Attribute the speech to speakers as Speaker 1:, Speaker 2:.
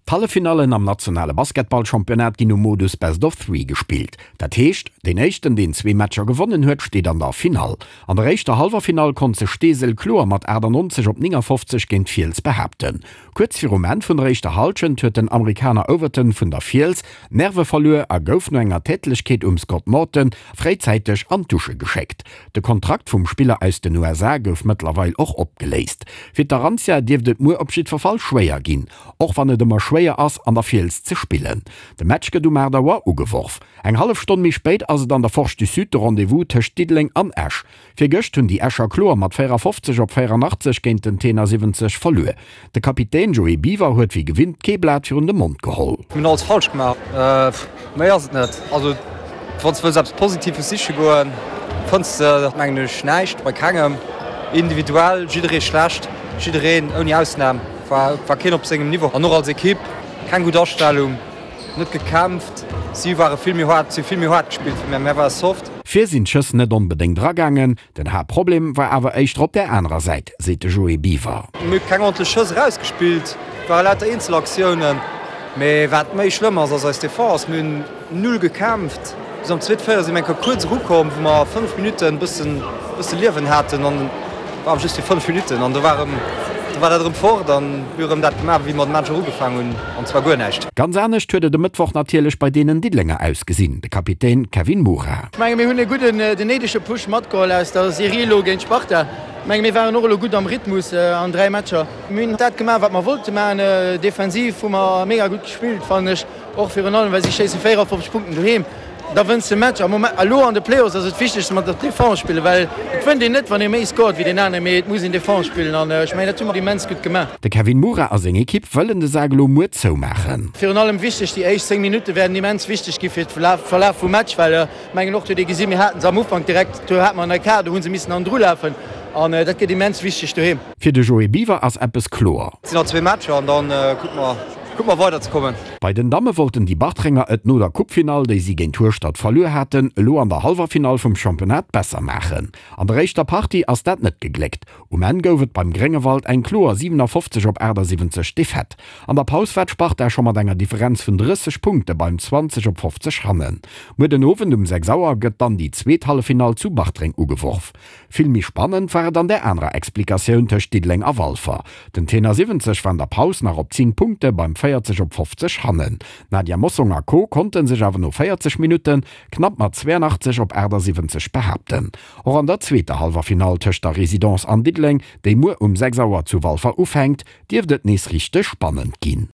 Speaker 1: D'Halleffinallen am nationale Basketballchampionnat ginn um Modus Best of Three gespillt. Dat heescht, deen éischten, deen zwee Matcher gewonnen huet, steet an der Finall. An der éischter Hallwerfinall konnt sech Steesel kloer mat 98 op 59 géint d'Fiels behaapten. Kuerz virum Enn vun der éischter Hallschent huet den Amerikaner Overton vun der Fiels d'Nerve verluer a gouf no enger Tätlechkeet um Scott Morton fréizäiteg an d'Dusche geschéckt. De Kontrakt vum Spiller aus den USA gouf mëttlerweil och opgeléist. Fir d'Arantia dierft et muer op jiddwer Fall schwéier ginn. Och wann et ëmmer schwéier ass, an der Fiels ze spillen. De Match gëtt um 8 Auer ugeworf. Eng hallef Stonn méi spéit ass et an der Forge du Sud de Rendez-vous tëscht Diddeleng an Esch. Virgëscht hunn déi Escher kloer mat 54 op 84 géint den Tenor 70 verluer. De Kapitän Joé Biwer huet wéi gewinnt kee Blat virun de Mond geholl.
Speaker 2: Mir hunn alles falsch gemaach. Méi ass et net. Also wann s de wëlls eppes Positives siche goen, fënns de mengen ech näischt bei kengem. Individuell jidderee schlecht, jiddereen ouni Ausnam. War keen op sengem Niveau an och als Ekipp keng gutt Astellung, net gekämpft. Si ware vill méi haart, si hu vill méi haart gespillt wéi mär, mär ware soft.
Speaker 1: Vir sinn d'Schëss net onbedéngt eragaangen, den Haaptproblem war awer éischter op där anerer Säit, seet de Joé Biwer.
Speaker 2: Mir hu keng ordentlech Schëss erausgespillt, ware lauter Eenzelaktiounen. Mee wat méi schlëmm ass, ass eis Defense. Mir hunn Null gekämpft. Bis am zweete Véierel si mir eng Kéier kuerz erukomm, wou mer 5 Minutten e bëssen, bësse Liewen haten an war awer just fir 5 Minutten an do war erëm, do war dat erëm fort an mir hu erëm dat gemaach, wéi mer de Match och ugefaangen hunn, an zwar guer näischt.
Speaker 1: Ganz anescht huet et e Mëttwoch natierlech bei deenen Diddelenger ausgesinn, de Kapitän Kevin Mura.
Speaker 3: Ech menge mir hunn e gudden, den néidege Push matgeholl aus der Serie elo géint Sparta. Ech menge mir waren och elo gutt am Rhythmus an 3 Matcher. Mir hunn dat gemaach, wat mer wollte maachen. Defensiv hu mer mega gutt gespillt, fannen ech. Och virun allem, well si schéisse 54 Punkten doheem. Da wënns de Match. Am Moment, elo an de Playoffs ass et wichteg, dass mer Defense spillen, well et wënnt een net, wann ee méi scored wéi deen aneren, mee et muss een Defense spillen an ech mengen, dat hu mer immens gutt gemaach.
Speaker 1: De Kevin Mura a seng Ekipp wëllen de Sak elo muer zoumaachen.
Speaker 3: Virun allem wichteg, déi éischt 10 Minutte wäerten immens wichteg gi fir de Verlaf vum Match, well ech mengen och, huet ee gesinn, mir haten se am Ufank direkt, do hate mer en Ecart, do hu se missen hannendru lafen an dat gëtt immens wichteg doheem.
Speaker 1: Fir de Joé Biwer ass eppes kloer.
Speaker 2: Et sinn nach zwee Matcher an da kucke mer. Kuck mer weider ze kommen.
Speaker 1: Bei den Damme wollten déi Bartrenger et no der Coupefinall, déi si géint Hueschtert verluer haten, elo an der hallwer Finall vum Championnat besser maachen. An der éischter Partie ass dat net gegléckt. Um Enn gouf et beim Gréngewald eng kloer 57 op 78 Defaite. An der Paus war d'Sparta scho mat enger Differenz vun 30 Punkte beim 20 op 50 hannen. Muer den Owend um 6 Auer gëtt dann déi zweet Halleffinall zu Bartreng ugeworf. Vill méi spannend war et an där anerer Explikatioun tëscht Diddeleng a Walfer. Den Tenor 70 war an der Paus nach op 10 Punkte beim 40 op 50 hannen. D'Nadia Mossong a Co konnte sech awer no 40 Minutte knapp mat 82 op 78 behaapten. Och an der zweeter Hallwerfinall tëscht der Résidence an Diddeleng, déi muer um 6 Auer zu Walfer ufänkt, dierft et nees richteg spannend ginn.